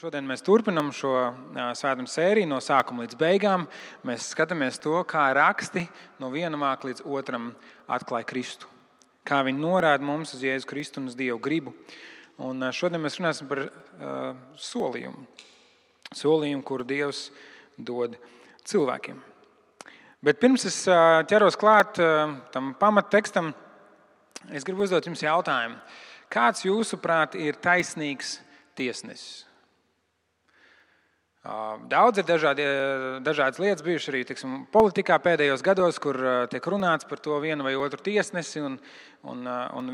Šodien mēs turpinām šo svētdienas sēriju no sākuma līdz beigām. Mēs skatāmies to, kā raksti no viena vāka līdz otram atklāja Kristu. Kā viņi norāda mums uz Jēzu Kristu un uz Dievu gribu. Un šodien mēs runāsim par solījumu. Solījumu, kuru Dievs dod cilvēkiem. Bet pirms es ķeros klāt tam pamattekstam, es gribu uzdot jums jautājumu. Kāds jūsuprāt ir taisnīgs tiesnesis? Daudz ir dažādas lietas bijušas arī politikā pēdējos gados, kur tiek runāts par to vienu vai otru tiesnesi un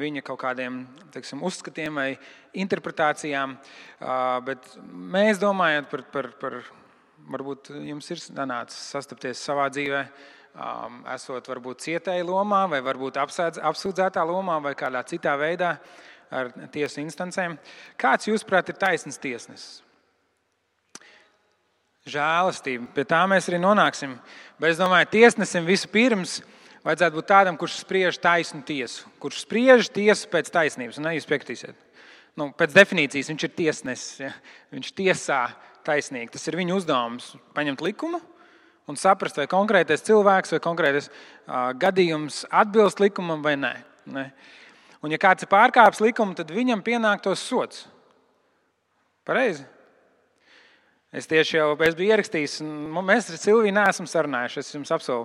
viņa kaut kādiem uzskatiem vai interpretācijām. Bet mēs domājam par varbūt jums ir sanācis sastapties savā dzīvē, esot varbūt cietēja lomā vai varbūt apsūdzētā lomā vai kādā citā veidā ar tiesu instancēm. Kāds jūsuprāt ir taisns tiesnesis? Žēlastība. Pie tā mēs arī nonāksim. Bet es domāju, tiesnesim vispirms vajadzētu būt tādam, kurš spriež taisnu tiesu. Kurš spriež tiesu pēc taisnības. Un jūs piekritīsiet. Pēc definīcijas viņš ir tiesnesis. Ja? Viņš tiesā taisnīgi. Tas ir viņa uzdevums paņemt likumu un saprast, vai konkrētais cilvēks vai konkrētais gadījums atbilst likumam vai nē. Un ja kāds ir pārkāpis likumu, tad viņam pienāktos sods. Pareizi? Es biju ierakstījis, un mēs ar Silviju neesam sarunājuši, es jums apsolu.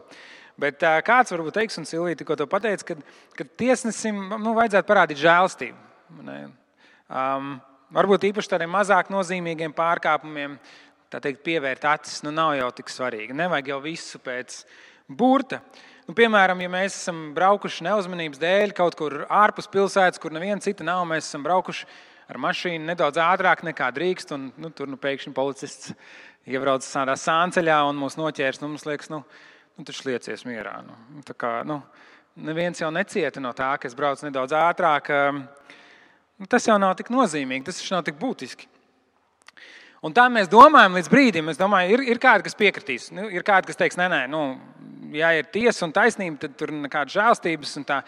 Bet kāds varbūt teiks, un Silvija tikko to pateica, ka tiesnesim vajadzētu parādīt žēlastību. Varbūt īpaši tādiem mazāk nozīmīgiem pārkāpumiem, tā teikt, pievērt acis, nav jau tik svarīgi. Nevajag jau visu pēc burta. Piemēram, ja mēs esam braukuši neuzmanības dēļ kaut kur ārpus pilsētas, kur neviena cita nav, mēs esam braukuši ar mašīnu nedaudz ātrāk nekā drīkst, un tur pēkšņi policists iebrauc tādā sānceļā un mūs noķērs. Mums liekas, taču liecies mierā. Tā kā, neviens jau necieta no tā, ka es braucu nedaudz ātrāk. Tas jau nav tik nozīmīgi, tas nav tik būtiski. Un tā mēs domājam līdz brīdim. Es domāju, ir kādi, kas piekritīs. Ir kādi, kas teiks, nē, ja ir tiesa un taisnība, tad tur nekādas žēlstības un tā.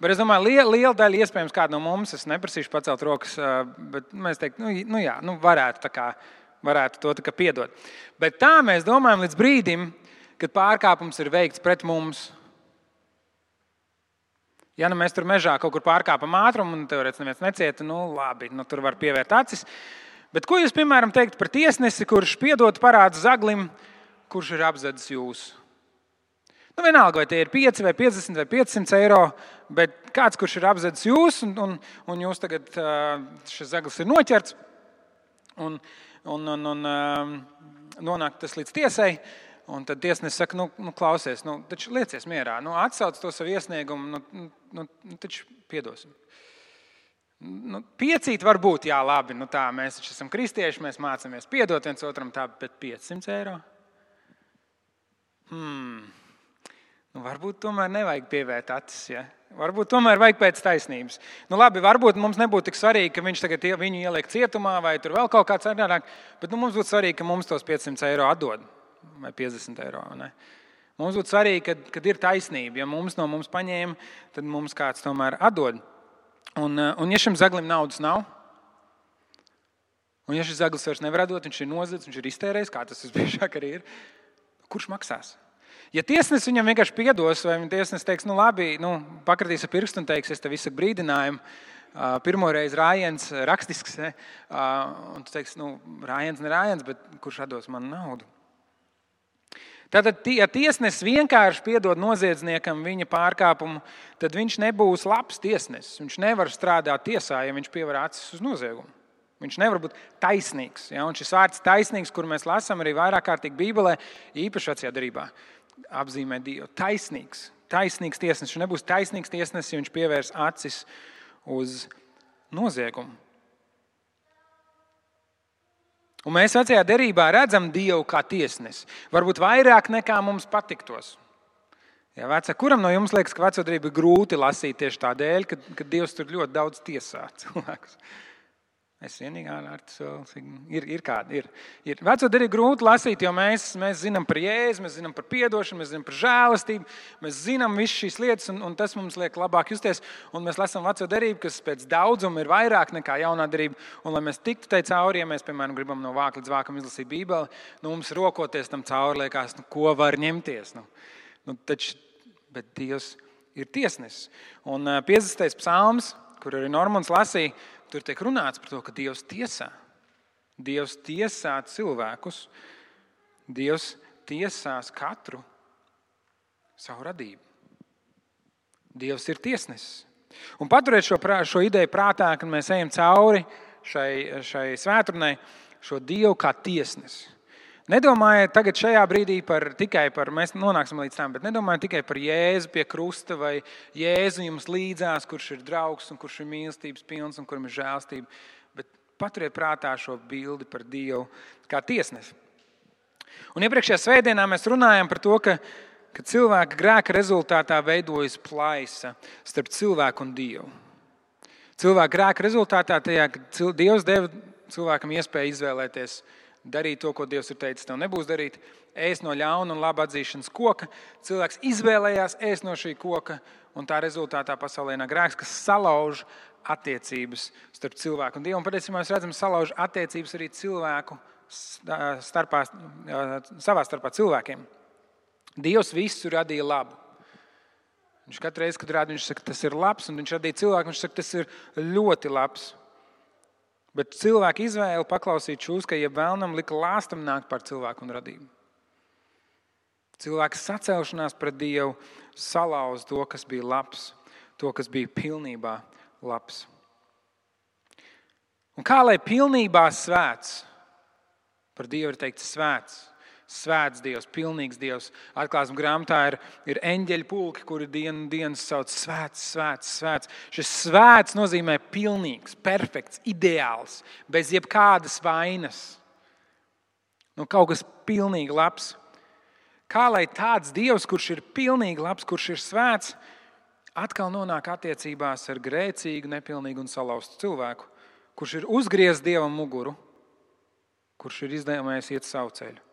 Bet es domāju, liela daļa iespējams kāda no mums, es neprasīšu pacelt rokas, bet mēs teiktu, varētu to tā kā piedot. Bet tā mēs domājam līdz brīdim, kad pārkāpums ir veikts pret mums. Ja mēs tur mežā kaut kur pārkāpam ātrumu un teorētiski neviens necieta, labi, tur var pievērt acis. Bet ko jūs, piemēram, teikt par tiesnesi, kurš piedot parādu zaglim, kurš ir apzadzis jūs? Vienalga, vai tie ir 5 vai 50 vai 500 eiro, bet kāds, kurš ir apzadzis jūs, un jūs tagad šis zaglis ir noķerts, un nonāk tas līdz tiesai, un tad tiesnesis saka, klausies, taču liecies mierā, atsauc to savu iesniegumu, taču piedosim. Piecīt var būt, jā, labi, tā, mēs taču esam kristieši, mēs mācāmies piedot viens otram tā, bet 500 eiro? Varbūt tomēr nevajag pievērt acis, ja? Varbūt tomēr vajag pēc taisnības. Labi, varbūt mums nebūtu tik svarīgi, ka viņš tagad viņu ieliek cietumā vai tur vēl kaut kāds citādāk, bet mums būtu svarīgi, ka mums tos 500 eiro atdod vai 50 eiro. Ne? Mums būtu svarīgi, kad ir taisnība. Ja mums no mums paņēma, tad mums kāds tomēr atdod. Un ja šim zaglim naudas nav, un ja šis zaglis vairs nevar atdot, viņš ir nozadzis, viņš ir iztērējis, kā tas visbiežāk arī ir, kurš maksās? Ja tiesnesis viņam vienkārši piedos, vai tiesnesis teiks, labi, pakratīs ar pirkstu un teiks, es tev izsaku brīdinājumu, pirmoreiz rājiens rakstisks, un tu teiks, rājiens ne rājiens, bet kurš atdos man naudu? Tātad, ja tiesnesis vienkārši piedod noziedzniekam viņa pārkāpumu, tad viņš nebūs labs tiesnesis. Viņš nevar strādāt tiesā, ja viņš pievar acis uz noziegumu. Viņš nevar būt taisnīgs. Ja? Un šis vārds taisnīgs, kuru mēs lasām arī vairāk kārtīgi Bībelē, īpaši vecajā derībā, apzīmē Dievu. Taisnīgs tiesnesis. Viņš nebūs taisnīgs tiesnesis, ja viņš pievērs acis uz noziegumu. Un mēs vecajā derībā redzam Dievu kā tiesnesi. Varbūt vairāk nekā mums patiktos. Ja, kuram no jums liekas, ka veco derību ir grūti lasīt tieši tādēļ, ka Dievs tur ļoti daudz tiesā cilvēkus? Es vienīgā ar to ir kāda. Ir. Veco derību grūti lasīt, jo mēs zinām par Jēzu, mēs zinām par piedošanu, mēs zinām par žēlastību, mēs zinām visas šīs lietas, un tas mums liek labāk justies. Un mēs lasām veco derību, kas pēc daudzuma ir vairāk nekā jaunā derība. Un lai mēs tiktu tai cauri, ja mēs, piemēram, gribam no vāka līdz vākam izlasīt Bībeli, mums rokoties tam cauri liekas, ko var ņemties. Bet Dievs ir tiesnesis. Un 50. psalms, kur arī Normons lasīja, tur tiek runāts par to, ka Dievs tiesā. Dievs tiesā cilvēkus. Dievs tiesās katru savu radību. Dievs ir tiesnesis. Un paturēt šo ideju prātā, kad mēs ejam cauri šai svētdienai, šo Dievu kā tiesnesi. Nedomājiet tagad šajā brīdī tikai par, mēs nonāksim līdz tam, bet nedomājiet tikai par Jēzu pie krusta vai Jēzu jums līdzās, kurš ir draugs un kurš ir mīlestības pilns un kuram ir žēlstība, bet paturiet prātā šo bildi par Dievu kā tiesnesi. Un iepriekšējā svētdienā mēs runājam par to, ka cilvēka grēka rezultātā veidojas plaisa starp cilvēku un Dievu. Cilvēka grēka rezultātā tajā, ka Dievs deva cilvēkam iespēju izvēlēties darīt to, ko Dievs ir teicis, tev nebūs darīt, ēst no ļauna un laba atzīšanas koka. Cilvēks izvēlējās ēst no šī koka, un tā rezultātā pasaulē nāk grēks, kas salauž attiecības starp cilvēku un Dievu. Un patiesībā mēs redzam, salauž attiecības arī cilvēku savā starpā cilvēkiem. Dievs visu radīja labu. Viņš katru reizi, kad rāda, viņš saka, tas ir labs, un viņš radīja cilvēku, viņš saka, tas ir ļoti labs. Bet cilvēka izvēle paklausīt šūskai, ja vēlnam lika lāstam nākt par cilvēku un radību. Cilvēka sacelšanās pret Dievu salauz to, kas bija labs, to, kas bija pilnībā labs. Un kā lai pilnībā svēts? Par Dievu ir teikts svēts. Svēts Dievs, pilnīgs Dievs. Atklāsmes grāmatā ir eņģeļu pulki, kuri dienas sauc svēts, svēts, svēts. Šis svēts nozīmē pilnīgs, perfekts, ideāls, bez jebkādas vainas. Kaut kas pilnīgi labs. Kā lai tāds Dievs, kurš ir pilnīgi labs, kurš ir svēts, atkal nonāk attiecībās ar grēcīgu, nepilnīgu un salauztu cilvēku, kurš ir uzgriezis Dievam muguru, kurš ir izlēmējis iet savu ceļu.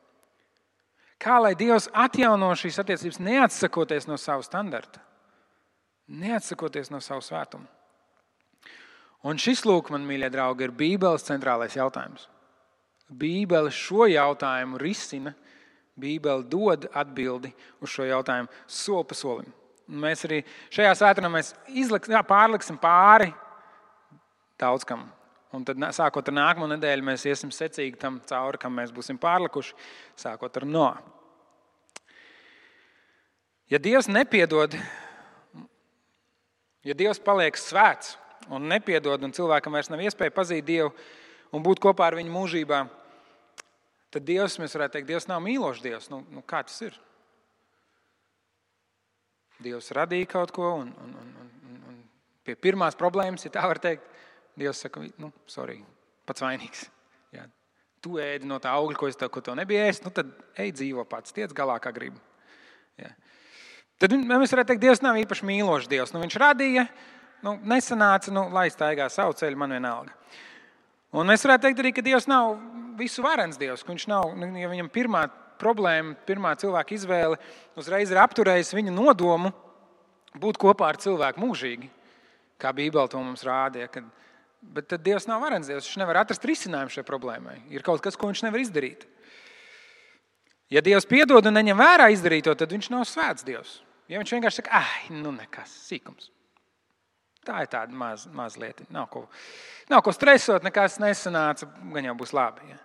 Kā lai Dievs atjauno šīs attiecības, neatsakoties no savu standarta, neatsakoties no savu svētumu. Un šis, lūk, man mīļie draugi, ir Bībeles centrālais jautājums. Bībele šo jautājumu risina, Bībele dod atbildi uz šo jautājumu soli pa solim. Un mēs arī šajā svētdienā pārliksim pāri daudz kam. Un tad, sākot ar nākamo nedēļu, mēs iesim secīgi tam cauri, kam mēs būsim pārlikuši, sākot ar Noa. Ja Dievs nepiedod, ja Dievs paliek svēts un nepiedod, un cilvēkam vairs nav iespēja pazīt Dievu un būt kopā ar viņu mūžībā, tad Dievs, mēs varētu teikt, Dievs nav mīlošs Dievs. Kā tas ir? Dievs radīja kaut ko, un pie pirmās problēmas, ja tā var teikt, Dievs saka, sorry, pats vainīgs. Jā. Tu ēdi no tā augļa, ko tev nebija ēst, tad ej dzīvo pats, tiec galā, kā gribi. Jā. Tad mēs varētu teikt, Dievs nav īpaši mīlošs Dievs. Viņš radīja, nesanāca, lai staigā savu ceļu, man vienalga. Un mēs varētu teikt arī, ka Dievs nav visu varens Dievs, ka viņš nav, ja viņam pirmā problēma, pirmā cilvēka izvēle uzreiz ir apturējusi viņa nodomu būt kopā ar cilvēku mūžīgi, kā Bībele to mums rādīja, bet tad Dievs nav varens Dievs, viņš nevar atrast risinājumu šai problēmai. Ir kaut kas, ko viņš nevar izdarīt. Ja Dievs piedod un neņem vērā izdarīto, tad viņš nav svēts Dievs. Ja viņš vienkārši saka, nekas, sīkums. Tā ir tāda maz lieta. Nav ko stresot, nekas nesanāca, gan jau būs labi. Ja?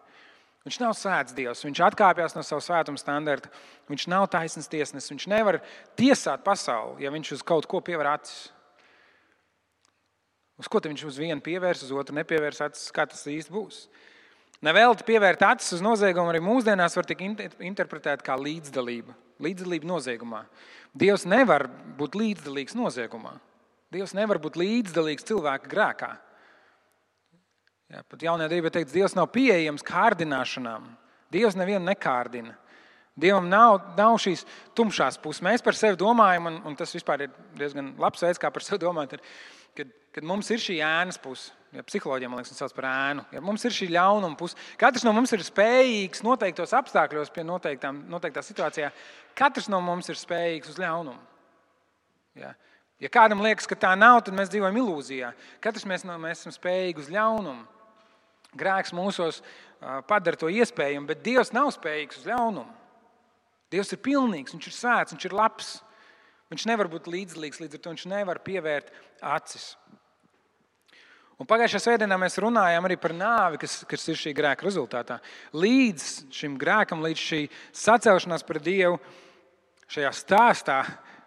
Viņš nav svēts Dievs, viņš atkāpjas no savu svētuma standarta, viņš nav taisns tiesnesis, viņš nevar tiesāt pasauli, ja viņš uz kaut ko pievēr acis. Uz ko viņš uz vienu pievērs, uz otru nepievērs acis, kā tas īsti būs. Nevēlti pievērt acis uz noziegumu arī mūsdienās var tik interpretēt kā līdzdalība. Līdzdalība noziegumā. Dievs nevar būt līdzdalīgs noziegumā. Dievs nevar būt līdzdalīgs cilvēka grēkā. Pat jaunajā derībā teikts, Dievs nav pieejams kārdināšanām. Dievs nevienu nekārdina. Dievam nav šīs tumšās puses. Mēs par sevi domājam, un tas vispār ir diezgan labs veids, kā par sevi domāt, kad mums ir šī ēnas puse. Ja, psiholoģija, man liekas, sauc par ēnu. Ja, mums ir šī ļaunuma puse. Katrs no mums ir spējīgs noteiktos apstākļos pie noteiktā situācijā. Katrs no mums ir spējīgs uz ļaunumu. Ja kādam liekas, ka tā nav, tad mēs dzīvojam ilūzijā. Katrs mēs esam spējīgi uz ļaunumu. Grēks mūsos padara to iespējamu, bet Dievs nav spējīgs uz ļaunumu. Dievs ir pilnīgs, viņš ir svēts, viņš ir labs. Viņš nevar būt līdzdalīgs, līdz ar to viņš nevar pievērt acis. Un pagājušajā svētdienā mēs runājām arī par nāvi, kas ir šī grēka rezultātā. Līdz šim grēkam, līdz šī sacelšanās pret Dievu, šajā stāstā,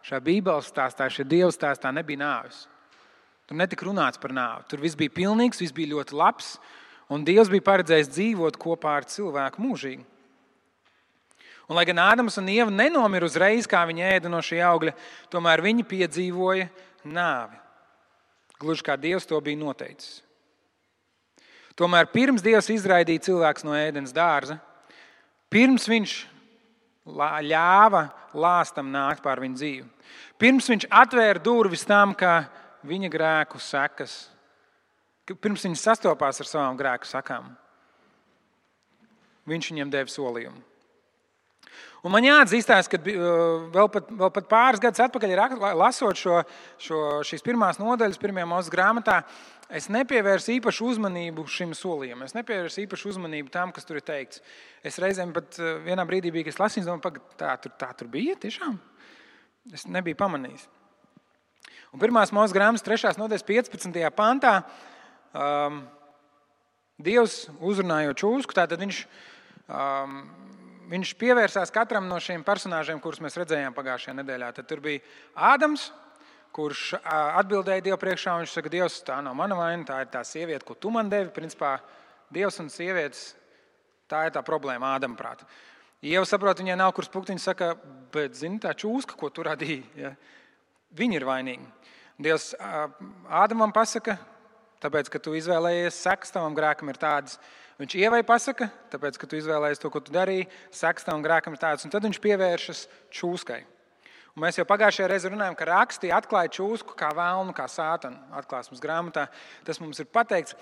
šajā Bībeles stāstā, šajā Dieva stāstā nebija nāves. Tur netika runāts par nāvi. Tur viss bija pilnīgs, viss bija ļoti labs, un Dievs bija paredzējis dzīvot kopā ar cilvēku mūžīgi. Un, lai gan Ādams un Ieva nenomira uzreiz, kā viņi ēda no šī augļa, tomēr viņi piedzīvoja nāvi. Gluži kā Dievs to bija noteicis. Tomēr pirms Dievs izraidīja cilvēkus no ēdens dārza, pirms viņš ļāva lāstam nākt pār viņu dzīvi, pirms viņš atvēra durvis tam, kā viņa grēku sekas, pirms viņš sastopās ar savām grēku sakām, viņš viņiem deva solījumu. Un man jāatzīstās, ka vēl pat pāris gadus atpakaļ, lasot šīs pirmās nodaļas pirmajā Mūzes grāmatā, es nepievērsu īpašu uzmanību šim solījumam. Es nepievērsu īpašu uzmanību tam, kas tur ir teikts. Es reizēm pat vienā brīdī biju, kad es lasīju, domāju, tā tur bija tiešām. Es nebiju pamanījis. Un pirmās Mūzes grāmatas 3. nodaļas 15. pantā Dievs uzrunājot čūsku, tātad viņš pievērsās katram no šiem personāžiem, kurus mēs redzējām pagājušajā nedēļā. Tad tur bija Ādams, kurš atbildēja Dievu priekšā, un viņš saka, Dievs, tā nav mana vaina, tā ir tā sieviete, ko tu man devi. Principā Dievs un sievietes, tā ir tā problēma Ādama prāta. Ieva saprot, viņai nav kur spukt, viņa saka, bet zini, tā čūska, ko tu radīji, ja? Viņi ir vainīgi. Dievs Ādamam pasaka, tāpēc, ka tu izvēlējies sekas, tavam grēkam ir tādas. Viņš Ievai pasaka, tāpēc, ka tu izvēlējies to, ko tu darīji, sekas tavam grēkam ir tādas. Un tad viņš pievēršas čūskai. Un mēs jau pagājušajā reizē runājām, ka raksti atklāja čūsku kā velnu, kā sātanu atklāsmes grāmatā. Tas mums ir pateikts.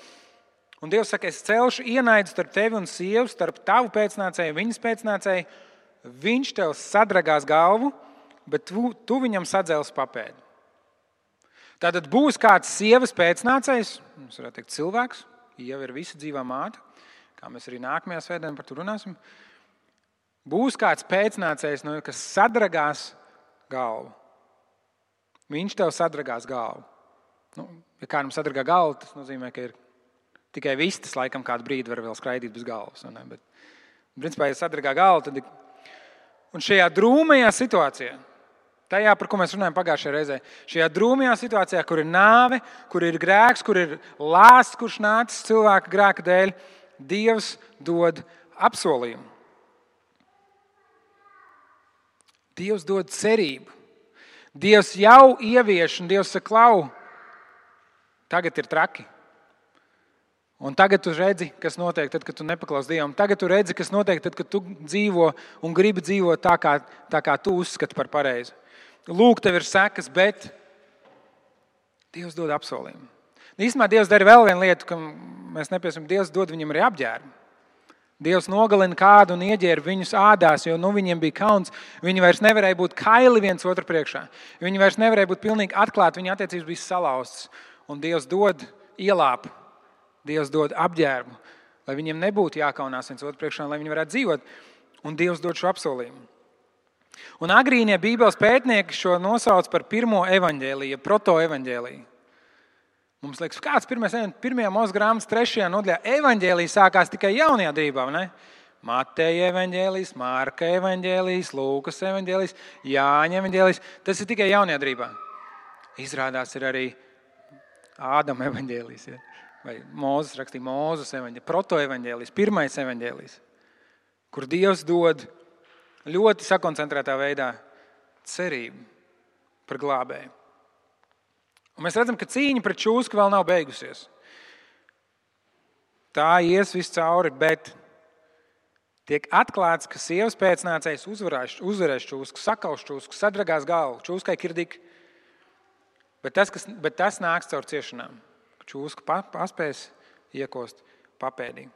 Un Dievs saka, es celšu ienaidu starp tevi un sievu, starp tavu pēcnācēju, viņas pēcnācēju. Viņš tev sadragās galvu, bet tu viņam sadzelsi papēdi. Tātad būs kāds sievas pēcnācējs, mums varētu teikt cilvēks, Ieva ir visa dzīvā māte, kā mēs arī nākamajā svētdienā par to runāsim. Būs kāds pēcnācējs, kas sadragās galvu. Viņš tev sadragās galvu. Ja kādam sadragā galvu, tas nozīmē, ka ir tikai vistas laikam kādu brīdi var vēl skraidīt bez galvas. Bet, principā, ja sadragā galvu, tad... Un šajā drūmajā situācijā, tajā, par ko mēs runājam pagājušajā reizē, šajā drūmajā situācijā, kur ir nāve, kur ir grēks, kur ir lāsts, kurš nācis cilvēka grēka dēļ, Dievs dod apsolījumu. Dievs dod cerību. Dievs jau ievieš, un Dievs saka, klau, tagad ir traki. Un tagad tu redzi, kas notiek, tad, kad tu nepaklausi Dievam. Tagad tu redzi, kas notiek, tad, kad tu dzīvo un gribi dzīvot tā, kā tu uzskati par pareizi. Lūk, tev ir sekas, bet Dievs dod apsolījumu. Īstenībā Dievs dara vēl vienu lietu, ka mēs nepiesim. Dievs dod viņam arī apģērbu. Dievs nogalina kādu un ieģērba viņus ādās, jo viņiem bija kauns. Viņi vairs nevarēja būt kaili viens otru priekšā. Viņi vairs nevarēja būt pilnīgi atklāti, viņa attiecības bija salauztas. Un Dievs dod ielāpu. Dievs dod apģērbu, lai viņiem nebūtu jākaunās viens otru priekšā, lai viņi varētu dzīvot. Un Dievs dod šo apsolījumu. Un agrīnie Bībeles pētnieki šo nosauc par pirmo evaņģēliju, protoevaņģēliju. Mums liekas, kāds pirmajā Mūzes grāmatas 3. nodaļā evaņģēlija sākās tikai jaunajā derībā, ne? Mateja evaņģēlijs, Marka evaņģēlijs, Lūkas evaņģēlijs, Jāņa evaņģēlijs. Tas ir tikai jaunajā derībā. Izrādās ir arī Ādama evaņģēlijs, ja? Vai Mūzes rakstīja Mūzes evaņģēlijs, protoevaņģēlijs, pirmais evaņģēlijs, kur Dievs dod ļoti sakoncentrētā veidā cerību par glābēju. Un mēs redzam, ka cīņa pret čūsku vēl nav beigusies. Tā ies viss cauri, bet tiek atklāts, ka sievas pēcnācējs uzvarēs čūsku, sakaus čūsku, sadragās galvu, čūskai kirdik. Bet tas nāks caur ciešanām. Čūska paspēs iekost papēdī.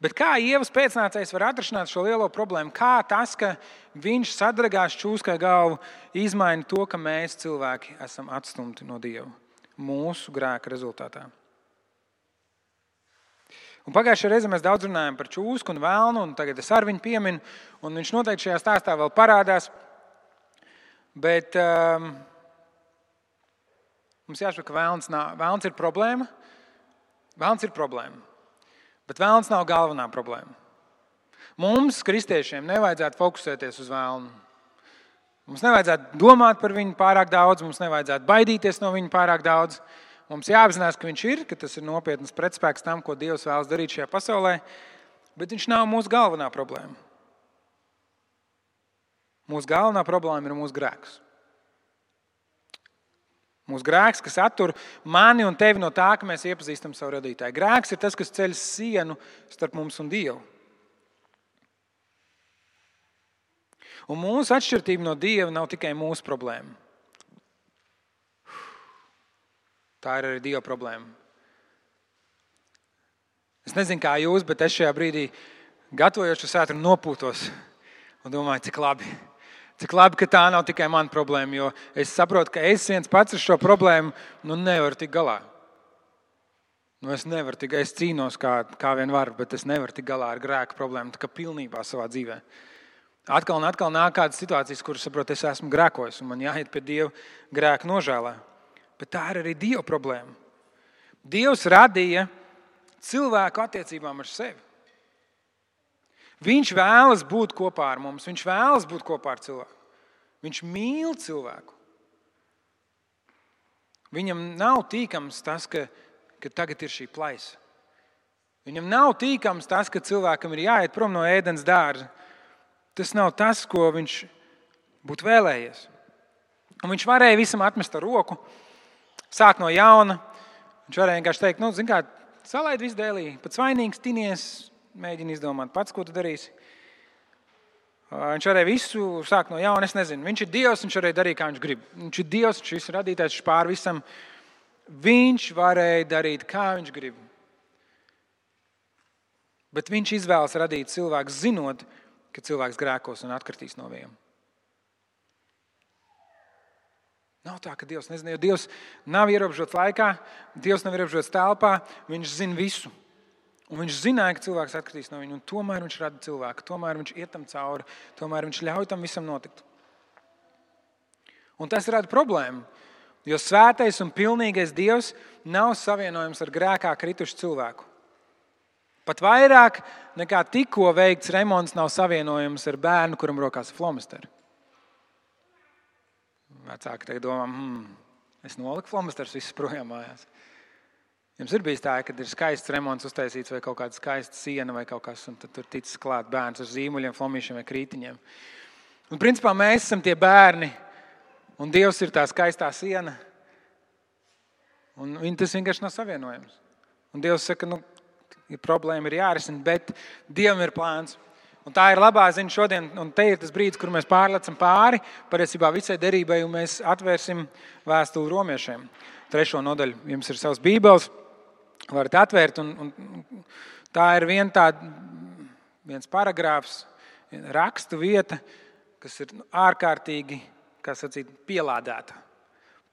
Bet kā Ievas pēcnācējs var atrisināt šo lielo problēmu? Kā tas, ka viņš sadragās čūskai galvu, izmaina to, ka mēs cilvēki esam atstumti no Dieva mūsu grēka rezultātā? Un pagājušajā reizē mēs daudz runājam par čūsku un velnu, un tagad es ar viņu pieminu, un viņš noteikti šajā stāstā vēl parādās. Bet mums jāsaprot, ka velns ir problēma. Velns ir problēma. Bet velns nav galvenā problēma. Mums, kristiešiem, nevajadzētu fokusēties uz velnu. Mums nevajadzētu domāt par viņu pārāk daudz, mums nevajadzētu baidīties no viņa pārāk daudz. Mums jāapzinās, ka viņš ir, ka tas ir nopietnas pretspēks tam, ko Dievs vēlas darīt šajā pasaulē, bet viņš nav mūsu galvenā problēma. Mūsu galvenā problēma ir mūsu grēks. Mūsu grēks, kas attur mani un tevi no tā, ka mēs iepazīstam savu radītāju. Grēks ir tas, kas ceļ sienu starp mums un Dievu. Un mūsu atšķirība no Dieva nav tikai mūsu problēma. Tā ir arī Dieva problēma. Es nezinu, kā jūs, bet es šajā brīdī gatavojos šo svētku nopūtos un domāju, cik labi. Cik labi, ka tā nav tikai mana problēma, jo es saprotu, ka es viens pats ar šo problēmu nevaru tikt galā. Es cīnos kā vien varu, bet es nevaru tikt galā ar grēku problēmu, tā kā pilnībā savā dzīvē. Atkal un atkal nāk kādas situācijas, kuras saprotu, es esmu grēkojis un man jāiet pie Dieva grēka nožēlā. Bet tā ir arī Dieva problēma. Dievs radīja cilvēku attiecībām ar sevi. Viņš vēlas būt kopā ar mums, viņš vēlas būt kopā ar cilvēku. Viņš mīl cilvēku. Viņam nav tīkams tas, ka tagad ir šī plaisa. Viņam nav tīkams tas, ka cilvēkam ir jāiet prom no ēdens dārza. Tas nav tas, ko viņš būtu vēlējies. Un viņš varēja visam atmest ar roku, sākt no jauna. Viņš varēja vienkārši teikt, zini kā, salaid visu dēlī, pat svainīgs, tinies, mēģini izdomāt pats, ko tu darīsi. Viņš varēja visu sākt no jauna, es nezinu. Viņš ir Dievs, viņš varēja darīt, kā viņš grib. Viņš ir Dievs, viņš visu radītājs, viņš pār visam. Viņš varēja darīt, kā viņš grib. Bet viņš izvēlas radīt cilvēku, zinot, ka cilvēks grēkos un atkritīs no viņiem. Nav tā, ka Dievs nezina, jo Dievs nav ierobežots laikā, Dievs nav ierobežots telpā, viņš zina visu. Un viņš zināja, ka cilvēks atkritīs no viņa, un tomēr viņš rada cilvēku, tomēr viņš iet tam cauri, tomēr viņš ļauj tam visam notikt. Un tas rada problēmu, jo svētais un pilnīgais Dievs nav savienojams ar grēkā kritušu cilvēku. Pat vairāk nekā tikko veikts remonts nav savienojams ar bērnu, kuram rokās flomasteri. Vecāki tagad domā, es noliku flomasterus visus projām mājās. Jums ir bijis tā, kad ir skaists remonts uztaisīts vai kaut kāda skaista siena vai kaut kas, un tad tur ticis klāt bērns ar zīmuļiem, flomīšiem vai krītiņiem. Un principā mēs esam tie bērni, un Dievs ir tā skaistā siena, un tas vienkārši nav savienojams. Un Dievs saka, problēma ir jārisina, bet Dievam ir plāns. Un tā ir labā ziņa šodien, un te ir tas brīdis, kur mēs pārlecam pāri, patiesībā visai derībai, un mēs atvērsim vēstuli romiešiem. 3. nodaļu. Jums ir savs bībeles, varat atvērt, un tā ir viens paragrāfs, rakstu vieta, kas ir ārkārtīgi, kā sacīt, pielādēta,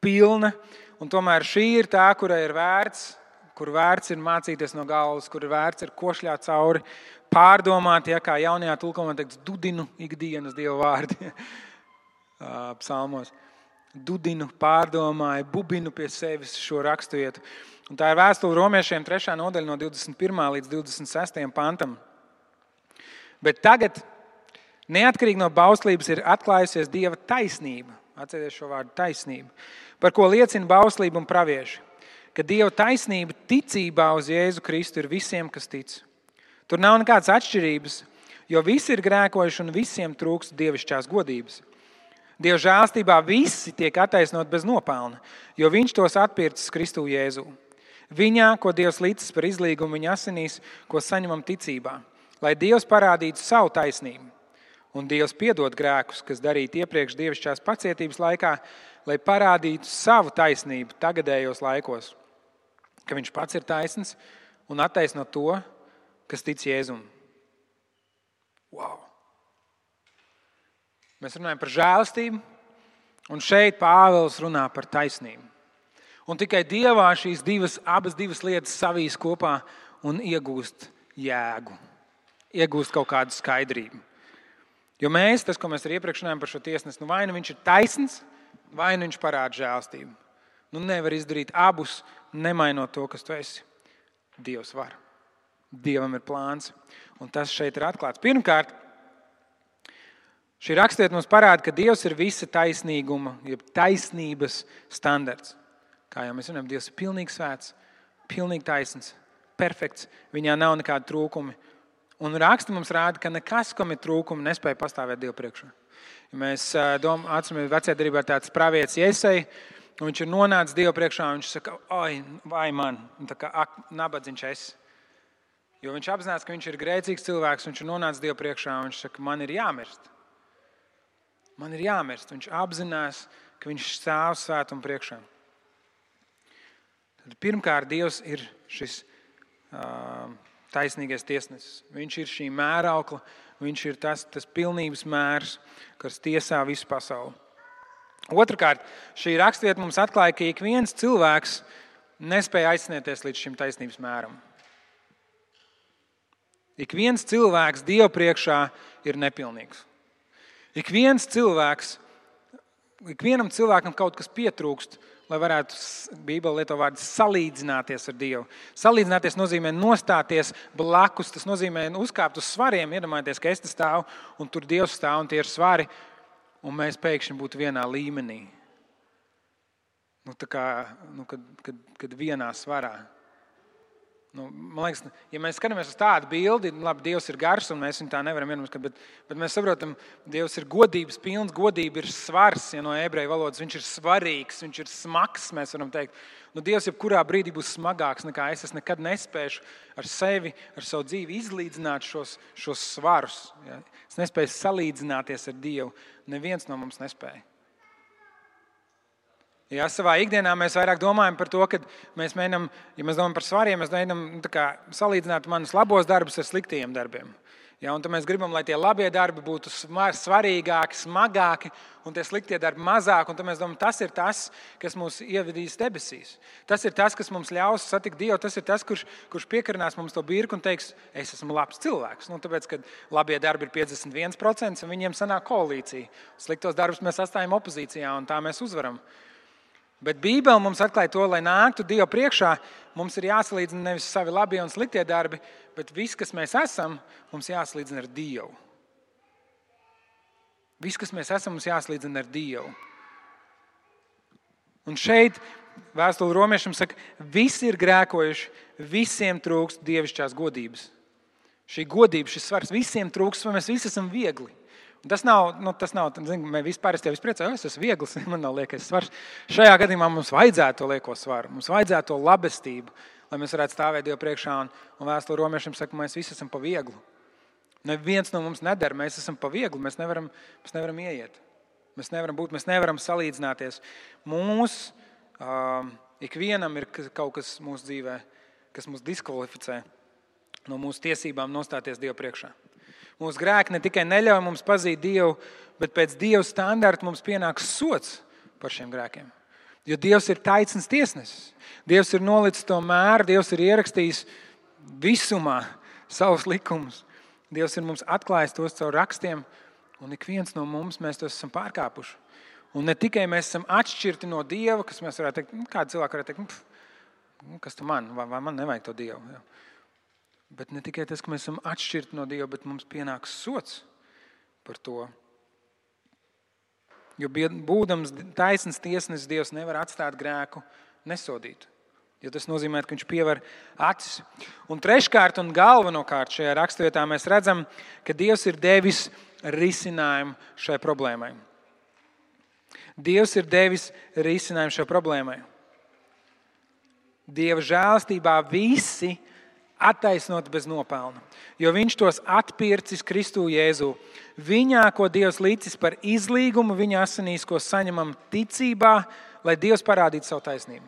pilna, un tomēr šī ir tā, kurai ir vērts, kur vērts ir mācīties no galvas, kur vērts ir košļāt cauri, pārdomāt, kā jaunajā tulkojumā teiks, dudinu ikdienas Dieva vārdi psalmos. Dudinu, pārdomāju, bubinu pie sevis šo raksturvietu. Un tā ir vēstule romiešiem 3. nodaļa no 21. līdz 26. pantam. Bet tagad, neatkarīgi no bauslības, ir atklājusies Dieva taisnība. Atcerieties šo vārdu taisnība. Par ko liecina bauslība un pravieši. Ka Dieva taisnība ticībā uz Jēzu Kristu ir visiem, kas tic. Tur nav nekādas atšķirības, jo visi ir grēkojuši un visiem trūkst dievišķās godības. Dieva žēlstībā visi tiek attaisnoti bez nopelna, jo viņš tos atpircis Kristu Jēzū. Viņā, ko Dievs licis par izlīgumu viņa asinīs, ko saņemam ticībā, lai Dievs parādītu savu taisnību. Un Dievs piedod grēkus, kas darīti iepriekš dievišķās pacietības laikā, lai parādītu savu taisnību tagadējos laikos, ka viņš pats ir taisns un attaisno to, kas tic Jēzum. Wow! Mēs runājam par žēlastību, un šeit Pāvils runā par taisnību. Un tikai Dievā šīs abas divas lietas savīs kopā un iegūst jēgu, iegūst kaut kādu skaidrību. Jo tas, ko mēs arī iepriekš runājam par šo tiesnesi, vai nu viņš ir taisns, vai nu viņš parāda žēlastību. Nevar izdarīt abus, nemainot to, kas tu esi. Dievs var. Dievam ir plāns. Un tas šeit ir atklāts. Pirmkārt, šī raksturvieta mums parāda, ka Dievs ir visa taisnīguma, jeb taisnības standarts. Kā jau mēs runājam, Dievs ir pilnīgi svēts, pilnīgi taisns, perfekts. Viņā nav nekādi trūkumi. Un raksti mums rāda, ka nekas, kam ir trūkumi, nespēja pastāvēt Dievu priekšā. Ja mēs atceramies, vecajā derībā ir tāds pravietis Jesai, un viņš ir nonācis Dievu priekšā, un viņš saka, oi, vai man, un tā kā nabadzīgs es. Jo viņš apzinās, ka viņš ir grēcīgs cilvēks, un viņš ir nonācis Dievu priekšā, un viņš saka, man ir jāmirst. Man ir jāmirst. Viņš apzinās, ka viņš stāv svētuma priekšā. Tad pirmkārt, Dievs ir šis taisnīgais tiesnesis. Viņš ir šī mēraukla, viņš ir tas pilnības mērs, kas tiesā visu pasauli. Otrakārt, šī raksturvieta mums atklāja, ka ik viens cilvēks nespēja aizsniegties līdz šim taisnības mēram. Ik viens cilvēks Dievu priekšā ir nepilnīgs. Ik vienam cilvēkam kaut kas pietrūkst, lai varētu, Bībele lieto vārdu, salīdzināties ar Dievu. Salīdzināties nozīmē nostāties blakus, tas nozīmē uzkāpt uz svariem, iedomājieties, ka es te stāvu un tur Dievs stāv un tie ir svari, un mēs pēkšņi būtu vienā līmenī. Kad vienā svarā. Man liekas, ja mēs skatāmies uz tādu bildi, labi, Dievs ir gars un mēs viņu tā nevaram vienmēr, bet mēs saprotam, Dievs ir godības pilns, godība ir svars, ja no ebreju valodas, viņš ir svarīgs, viņš ir smags, mēs varam teikt. Dievs jebkurā brīdī būs smagāks nekā es nekad nespēšu ar sevi, ar savu dzīvi izlīdzināt šos svarus. Ja? Es nespēju salīdzināties ar Dievu, neviens no mums nespēja. Ja, savā ikdienā mēs vairāk domājam par to, ka mēs mēģinām, ja mēs domājam par svariem, mēs mēģinām salīdzināt manus labos darbus ar sliktajiem darbiem. Ja, un tad mēs gribam, lai tie labie darbi būtu svarīgāki, smagāki, un tie sliktie darbi mazāk, un tad mēs domājam, tas ir tas, kas mūs ievedīs debesīs. Tas ir tas, kas mums ļaus satikt Dievu, tas ir tas, kurš piekarinās mums to birku un teiks, es esmu labs cilvēks. Tāpēc, ka labie darbi ir 51%, un viņiem sanāk koalīcija. Sliktos darbus mēs atstājam opozīcijā, un tā mēs uzvaram. Bet Bībele mums atklāja to, lai nāktu Dievu priekšā, mums ir jāsalīdzina nevis savi labie un sliktie darbi, bet viss, kas mēs esam, mums jāsalīdzina ar Dievu. Viss, kas mēs esam, mums jāsalīdzina ar Dievu. Un šeit vēstule romiešiem saka, visi ir grēkojuši, visiem trūkst dievišķās godības. Šī godība, šis svars, visiem trūkst, vai mēs visi esam viegli. Tas nav, mēs vispār es priecāju, es esmu viegls, man nav liekais svars. Šajā gadījumā mums vajadzētu to lieko svaru, mums vajadzētu to labestību, lai mēs varētu stāvēt Dievu priekšā, un vēstule romiešiem saka, mēs visi esam pa vieglu. Neviens no mums nedara, mēs esam pa vieglu, mēs nevaram ieiet. Mēs nevaram būt, mēs nevaram salīdzināties. Ikvienam ir kaut kas mūsu dzīvē, kas mūs diskvalificē no mūsu tiesībām nostāties Dievu priekšā. Mūsu grēki ne tikai neļauj mums pazīt Dievu, bet pēc Dieva standarta mums pienāks sods par šiem grēkiem. Jo Dievs ir taisns tiesnesis. Dievs ir nolicis to mēru, Dievs ir ierakstījis visumā savus likumus. Dievs ir mums atklājis tos caur rakstiem, un ik viens no mums mēs tos esam pārkāpuši. Un ne tikai mēs esam atšķirti no Dieva, kas mēs varētu teikt, kādi cilvēki varētu teikt, kas tu man, vai man nevajag to Dievu. Ja. Bet ne tikai tas, ka mēs esam atšķirti no Dieva, bet mums pienāks sods par to. Jo būdams taisns tiesnesis, Dievs nevar atstāt grēku nesodītu. Jo tas nozīmē, ka viņš pievar acis. Un treškārt un galvenokārt šajā raksturvietā mēs redzam, ka Dievs ir devis risinājumu šai problēmai. Dievs ir devis risinājumu šai problēmai. Dieva žēlastībā visi attaisnoti bez nopelna, jo viņš tos atpircis Kristu Jēzū. Viņā, ko Dievs licis par izlīgumu, viņa asinīs, ko saņemam ticībā, lai Dievs parādītu savu taisnību.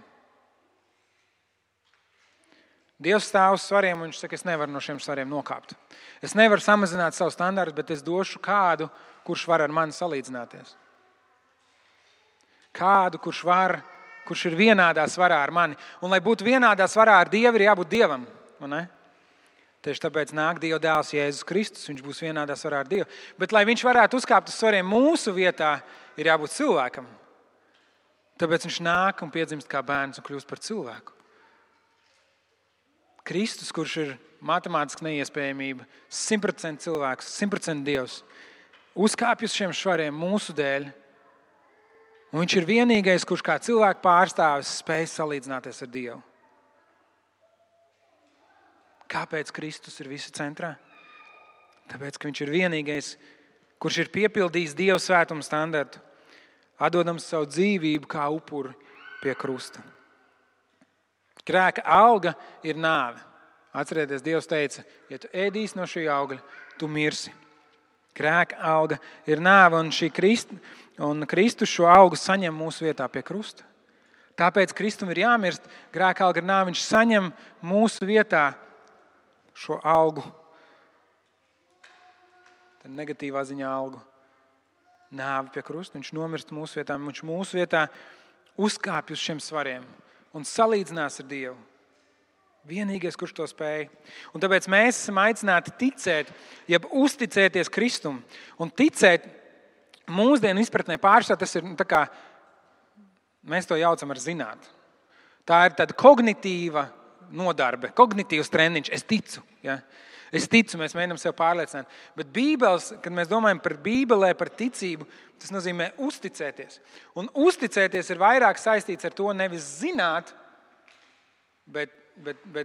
Dievs stāv uz svariem, un viņš saka, es nevaru no šiem svariem nokāpt. Es nevaru samazināt savu standartu, bet es došu kādu, kurš var ar mani salīdzināties. Kādu, kurš ir vienādā svarā ar mani. Un, lai būtu vienādā svarā ar Dievu, ir jābūt Dievam. Tieši tāpēc nāk Dieva dēls Jēzus Kristus, viņš būs vienādā svarā ar Dievu. Bet, lai viņš varētu uzkāpt uz svariem mūsu vietā, ir jābūt cilvēkam. Tāpēc viņš nāk un piedzimst kā bērns un kļūst par cilvēku. Kristus, kurš ir matemātiski neiespējamība, 100% cilvēks, 100% Dievs, uzkāpj uz šiem svariem mūsu dēļ. Un viņš ir vienīgais, kurš kā cilvēku pārstāvis spēj salīdzināties ar Dievu. Kāpēc Kristus ir visu centrā? Tāpēc, ka viņš ir vienīgais, kurš ir piepildījis Dieva svētuma standartu, atdodams savu dzīvību kā upuri pie krusta. Grēka alga ir nāve. Atcerieties, Dievs teica, ja tu ēdīsi no šī augļa, tu mirsi. Grēka alga ir nāve, un Kristus šo augu saņem mūsu vietā pie krusta. Tāpēc Kristum ir jāmirst, grēka alga ir nāve, viņš saņem mūsu vietā šo algu. Tad negatīvā ziņā algu. Nāve pie krusta, viņš nomirst mūsu vietā, viņš mūsu vietā uzkāpj uz šiem svariem un salīdzinās ar Dievu. Vienīgais, kurš to spēj. Un tāpēc mēs esam aicināti ticēt, jeb uzticēties Kristum. Un ticēt mūsdienu izpratnē pārstāv, tas ir tā kā, mēs to jaucam ar zināt. Tā ir tāda kognitīva nodarbe, kognitīvs treniņš. Es ticu, ja? Es ticu, mēs mēģinām sev pārliecināt. Bet Bībeles, kad mēs domājam par Bībelē, par ticību, tas nozīmē uzticēties. Un uzticēties ir vairāk saistīts ar to nevis zināt, bet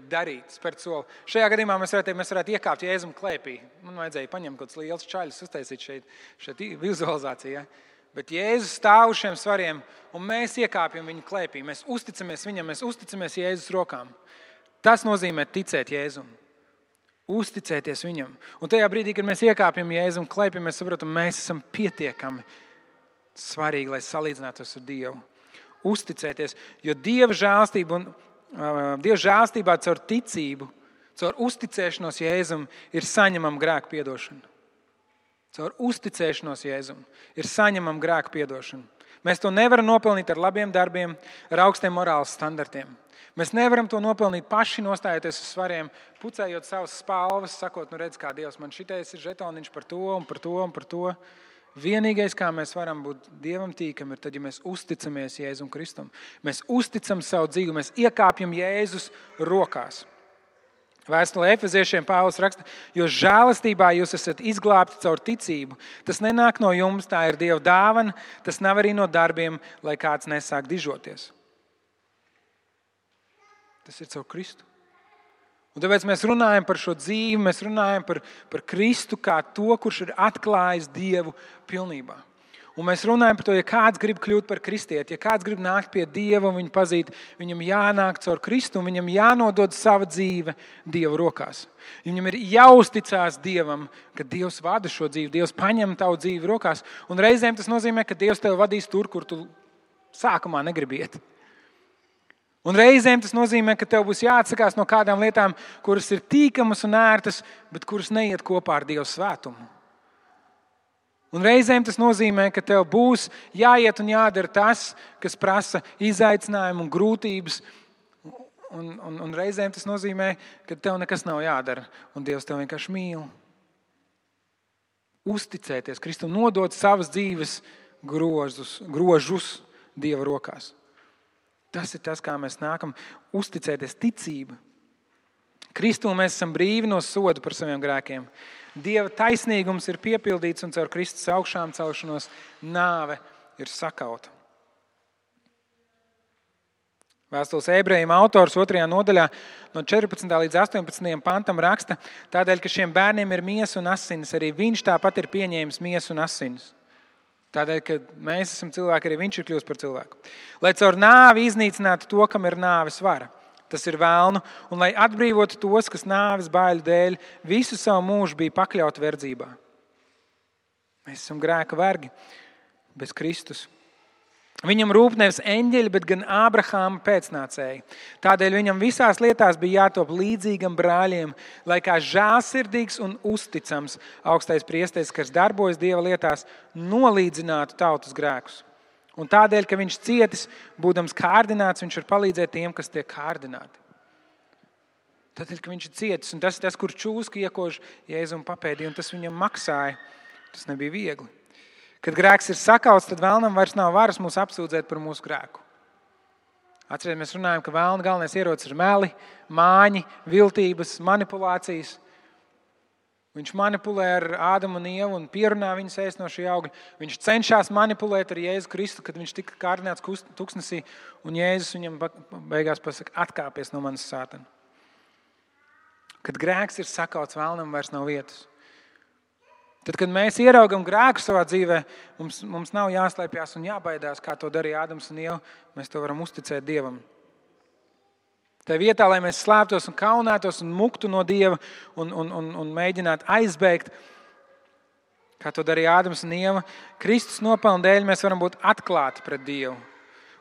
darīt, spērt soli. Šajā gadījumā mēs varētu iekāpt Jēzum klēpī. Man vajadzēja paņemt kaut kāds liels čaļus, uztaisīt šeit vizualizācijā. Bet Jēzus stāv uz šiem svariem, un mēs iekāpjam viņu klēpī. Mēs uzticamies viņam, mēs uzticamies Jēzus rokām. Tas nozīmē ticēt Jēzum. Uzticēties viņam. Un tajā brīdī, kad mēs iekāpjam Jēzum klēpī, mēs saprotam, mēs esam pietiekami svarīgi, lai salīdzinātos ar Dievu. Uzticēties, jo Dieva žēlstībā caur ticību, caur uzticēšanos Jēzum ir saņemama grēku piedošana. Caur uzticēšanos Jēzum ir saņemama grēku piedošana. Mēs to nevaram nopelnīt ar labiem darbiem, ar augstiem morāles standartiem. Mēs nevaram to nopelnīt paši nostājoties uz svariem, pucējot savas spalvas, sakot, redz, kā Dievs, man šitais ir žetoniņš par to un par to un par to. Vienīgais, kā mēs varam būt Dievam tīkami, ir tad, ja mēs uzticamies Jēzum Kristum. Mēs uzticam savu dzīvi, mēs iekāpjam Jēzus rokās. Vēstulē Efeziešiem Pāvils raksta, jo žēlastībā jūs esat izglābti caur ticību. Tas nenāk no jums, tā ir Dieva dāvana, tas nav arī no darbiem, lai kāds nesāk dižoties. Tas ir caur Kristu. Un tāpēc mēs runājam par šo dzīvi, mēs runājam par Kristu kā to, kurš ir atklājis Dievu pilnībā. Un mēs runājam par to, ja kāds grib kļūt par kristieti, ja kāds grib nākt pie Dieva un viņu pazīt, viņam jānāk caur Kristu un viņam jānodod sava dzīve Dieva rokās. Viņam ir jāuzticās Dievam, ka Dievs vada šo dzīvi, Dievs paņem tavu dzīvi rokās. Un reizēm tas nozīmē, ka Dievs tevi vadīs tur, kur tu sākumā negribi iet. Un reizēm tas nozīmē, ka tev būs jāatsakās no kādām lietām, kuras ir tīkamas un ērtas, bet kuras neiet kopā ar Dieva svētumu. Un reizēm tas nozīmē, ka tev būs jāiet un jādara tas, kas prasa izaicinājumu un grūtības. Un reizēm tas nozīmē, ka tev nekas nav jādara, un Dievs tev vienkārši mīl. Uzticēties Kristum, nodot savas dzīves grožus Dieva rokās. Tas ir tas, kā mēs nākam uzticēties ticība. Kristū mēs esam brīvi no soda par saviem grēkiem. Dieva taisnīgums ir piepildīts un caur Kristus augšām celšanos nāve ir sakauta. Vēstules Ebrejiem autors 2. nodaļā no 14. līdz 18. pantam raksta, tādēļ, ka šiem bērniem ir miesa un asinis, arī viņš tāpat ir pieņēmis miesu un asinis. Tādēļ, ka mēs esam cilvēki, arī viņš ir kļūst par cilvēku. Lai caur nāvi iznīcinātu to, kam ir nāves vara. tas ir velnu, un lai atbrīvotu tos, kas nāves baiļu dēļ visu savu mūžu bija pakļauti verdzībā. Mēs esam grēka vergi bez Kristus. Viņam rūp nevis eņģeļi, bet gan Ābrahāma pēcnācēji. Tādēļ viņam visās lietās bija jātop līdzīgam brāļiem, lai kā žēlsirdīgs un uzticams augstais priesteris, kas darbojas Dieva lietās, nolīdzinātu tautas grēkus. Un tādēļ, ka viņš cietis, būdams kārdināts, viņš var palīdzēt tiem, kas tiek kārdināti. Tādēļ, ka viņš ir cietis, un tas ir tas, kur čūska iekož Jēzum papēdī, un tas viņam maksāja. Tas nebija viegli. Kad grēks ir sakauts, tad vēlnam vairs nav varas mūs apsūdzēt par mūsu grēku. Atcerieties, mēs runājam, ka vēlna galvenais ierocis ir meli, māņi, viltības, manipulācijas. Viņš manipulē ar Ādamu un Ievu un pierunā viņus ēst no šī augļa. Viņš cenšas manipulēt ar Jēzu Kristu, kad viņš tika kārdināts tuksnesī, un Jēzus viņam beigās pasaka, atkāpies no manas sātana. Kad grēks ir sakauts, vēlnam vairs nav vietas. Tad, kad mēs ieraugam grēku savā dzīvē, mums nav jāslēpjas un jābaidās, kā to darīja Ādams un Ieva. Mēs to varam uzticēt Dievam. Tā vietā, lai mēs slēptos un kaunētos un muktu no Dieva un mēģinātu aizbēgt, kā to darīja Ādams un Ieva, Kristus nopelna dēļ mēs varam būt atklāti pret Dievu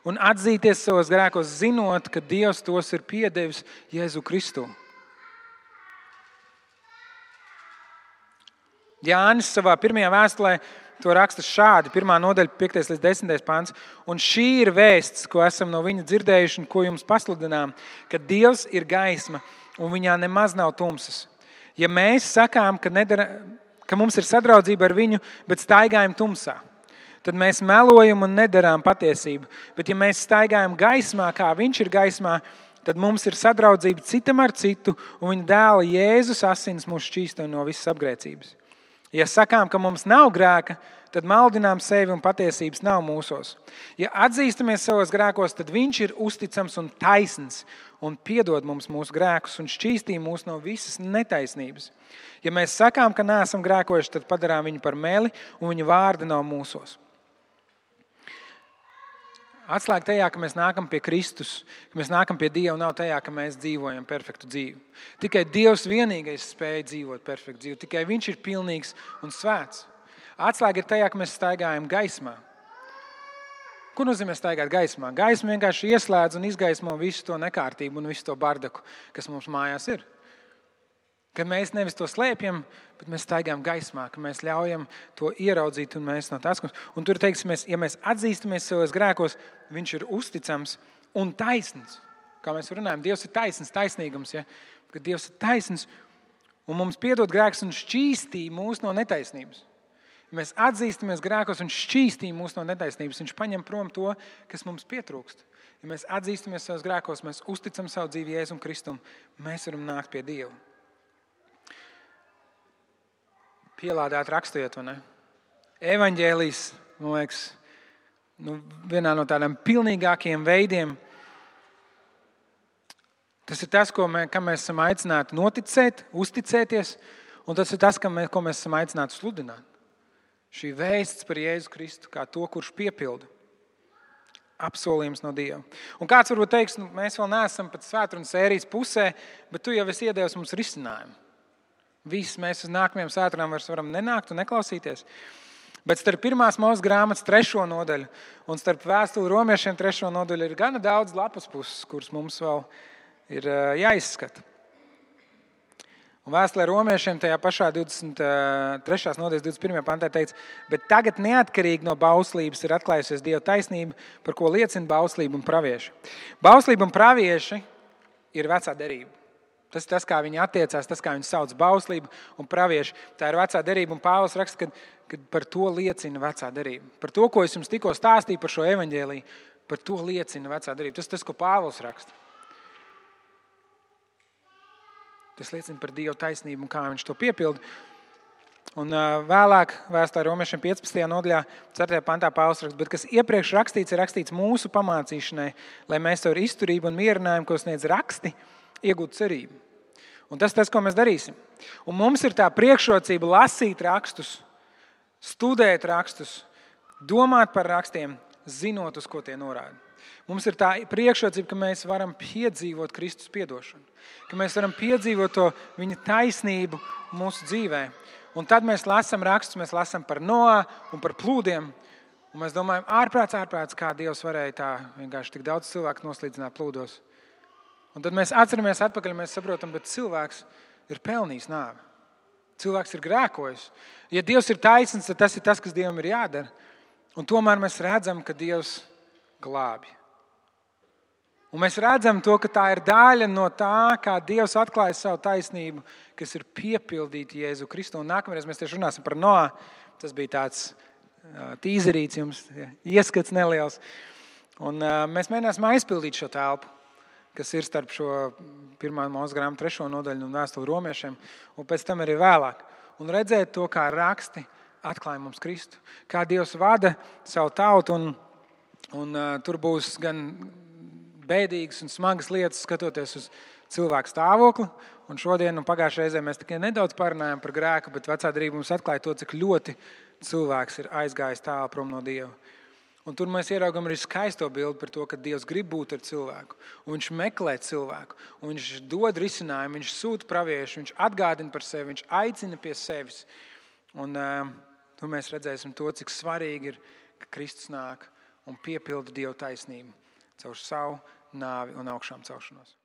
un atzīties savos grēkos, zinot, ka Dievs tos ir piedevis Jēzu Kristu. Jānis savā pirmajā vēstulē to raksta šādi, 1. nodaļa, 5. līdz 10. pants. Un šī ir vēsts, ko esam no viņa dzirdējuši un ko jums pasludinām, ka Dievs ir gaisma un viņā nemaz nav tumsas. Ja mēs sakām, ka mums ir sadraudzība ar viņu, bet staigājam tumsā, tad mēs melojam un nedarām patiesību. Bet ja mēs staigājam gaismā, kā viņš ir gaismā, tad mums ir sadraudzība citam ar citu, un viņa dēla Jēzus asins mūs šķīsto no visas apgrēcības. Ja sakām, ka mums nav grēka, tad maldinām sevi un patiesības nav mūsos. Ja atzīstamies savos grēkos, tad viņš ir uzticams un taisns un piedod mums mūsu grēkus un šķīstī mūs no visas netaisnības. Ja mēs sakām, ka neesam grēkojuši, tad padarām viņu par meli un viņa vārdi nav mūsos. Atslēga tajā, ka mēs nākam pie Kristus, ka mēs nākam pie Dieva, nav tajā, ka mēs dzīvojam perfektu dzīvi. Tikai Dievs vienīgais spēja dzīvot perfektu dzīvi. Tikai viņš ir pilnīgs un svēts. Atslēga ir tajā, ka mēs staigājam gaismā. Ko nozīmē staigāt gaismā? Gaisma vienkārši ieslēdz un izgaismo visu to nekārtību un visu to bardaku, kas mums mājās ir. Ka mēs nevis to slēpjam, bet mēs staigājam gaismā, ka mēs ļaujam to ieraudzīt un mēs no tās. Un tur teiksimies, ja mēs atzīstamies savos grēkos, viņš ir uzticams un taisns. Kā mēs runājam, Dievs ir taisns, taisnīgums. Ja? Kad Dievs ir taisns un mums piedod grēks un šķīstī mūs no netaisnības. Ja mēs atzīstamies grēkos un šķīstī mūs no netaisnības, viņš paņem prom to, kas mums pietrūkst. Ja mēs atzīstamies savos grēkos, mēs uzticam savu dzīvi Jēzum Kristum, mēs varam nākt pie Dieva. Pielādēt rakstojot, vai ne? Evaņģēlijs, man liekas, vienā no tādiem pilnīgākajiem veidiem. Tas ir tas, kam mēs esam aicināti noticēt, uzticēties, un tas ir tas, ko mēs esam aicināti sludināt. Šī vēsts par Jēzu Kristu, kā to, kurš piepilda. Apsolījums no Dieva. Un kāds varbūt teiks, mēs vēl neesam pat svētrunas sērijas pusē, bet tu jau esi iedevis mums risinājumu. Visi mēs uz nākamajām svētdienām varam nenākt un neklausīties. Bet starp 1. Mūzes grāmatas 3. nodaļu un starp vēstuli romiešiem 3. nodaļu ir gana daudz lapas puses, kuras mums vēl ir jāizskata. Un vēstulē romiešiem tajā pašā 23. nodaļas 21. pantā teica, bet tagad neatkarīgi no bauslības ir atklājusies Dieva taisnība, par ko liecina bauslība un pravieši. Bauslība un pravieši ir vecā derība. Tas ir tas, kā viņi attiecās, tas, kā viņi sauc bauslību un pravieši. Tā ir vecā derība, un Pāvils raksta, ka par to liecina vecā derība. Par to, ko es jums tikko stāstīju par šo evaņģēliju, par to liecina vecā derība. Tas ir tas, ko Pāvils raksta. Tas liecina par Dieva taisnību un kā viņš to piepilda. Un vēlāk vēstulē romiešiem 15. nodaļā 4. pantā Pāvils raksta, bet kas iepriekš rakstīts, ir rakstīts mūsu pamācīšanai, lai mēs ar izturību un mierinājumu, ko sniedz raksti, iegūt cerību. Un tas, ko mēs darīsim. Un mums ir tā priekšrocība lasīt rakstus, studēt rakstus, domāt par rakstiem, zinot, uz ko tie norāda. Mums ir tā priekšrocība, ka mēs varam piedzīvot Kristus piedošanu, ka mēs varam piedzīvot to viņa taisnību mūsu dzīvē. Un tad mēs lasām rakstus, mēs lasām par Noā un par plūdiem, un mēs domājam, ārprāts, kā Dievs varēja tā vienkārši tik daudz cilvēku noslīdzināt plūdos. Un tad mēs atceramies atpakaļ, mēs saprotam, bet cilvēks ir pelnījis nāvi. Cilvēks ir grēkojis. Ja Dievs ir taisns, tad tas ir tas, kas Dievam ir jādara. Un tomēr mēs redzam, ka Dievs glābi. Un mēs redzam to, ka tā ir daļa no tā, kā Dievs atklāja savu taisnību, kas ir piepildīta Jēzu Kristu. Un nākamreiz mēs tieši runāsim par Noā. Tas bija tāds tīzerīts jums, ieskats neliels. Un mēs mēģināsim aizpildīt šo telpu, kas ir starp šo 1. Mūzes grāmatu 3. nodaļu un vēstuli romiešiem, un pēc tam arī vēlāk. Un redzēt to, kā raksti atklāja mums Kristu, kā Dievs vada savu tautu, un tur būs gan bēdīgas un smagas lietas, skatoties uz cilvēku stāvokli. Un šodien un pagājušajā reizē mēs tikai nedaudz parunājām par grēku, bet vecā derība mums atklāja to, cik ļoti cilvēks ir aizgājis tālu prom no Dieva. Un tur mēs ieraugam arī skaisto bildi par to, ka Dievs grib būt ar cilvēku. Un viņš meklē cilvēku. Un viņš dod risinājumu, viņš sūta praviešu, viņš atgādina par sevi, viņš aicina pie sevis. Un tur mēs redzēsim to, cik svarīgi ir, ka Kristus nāk un piepilda Dieva taisnību caur savu nāvi un augšām celšanos.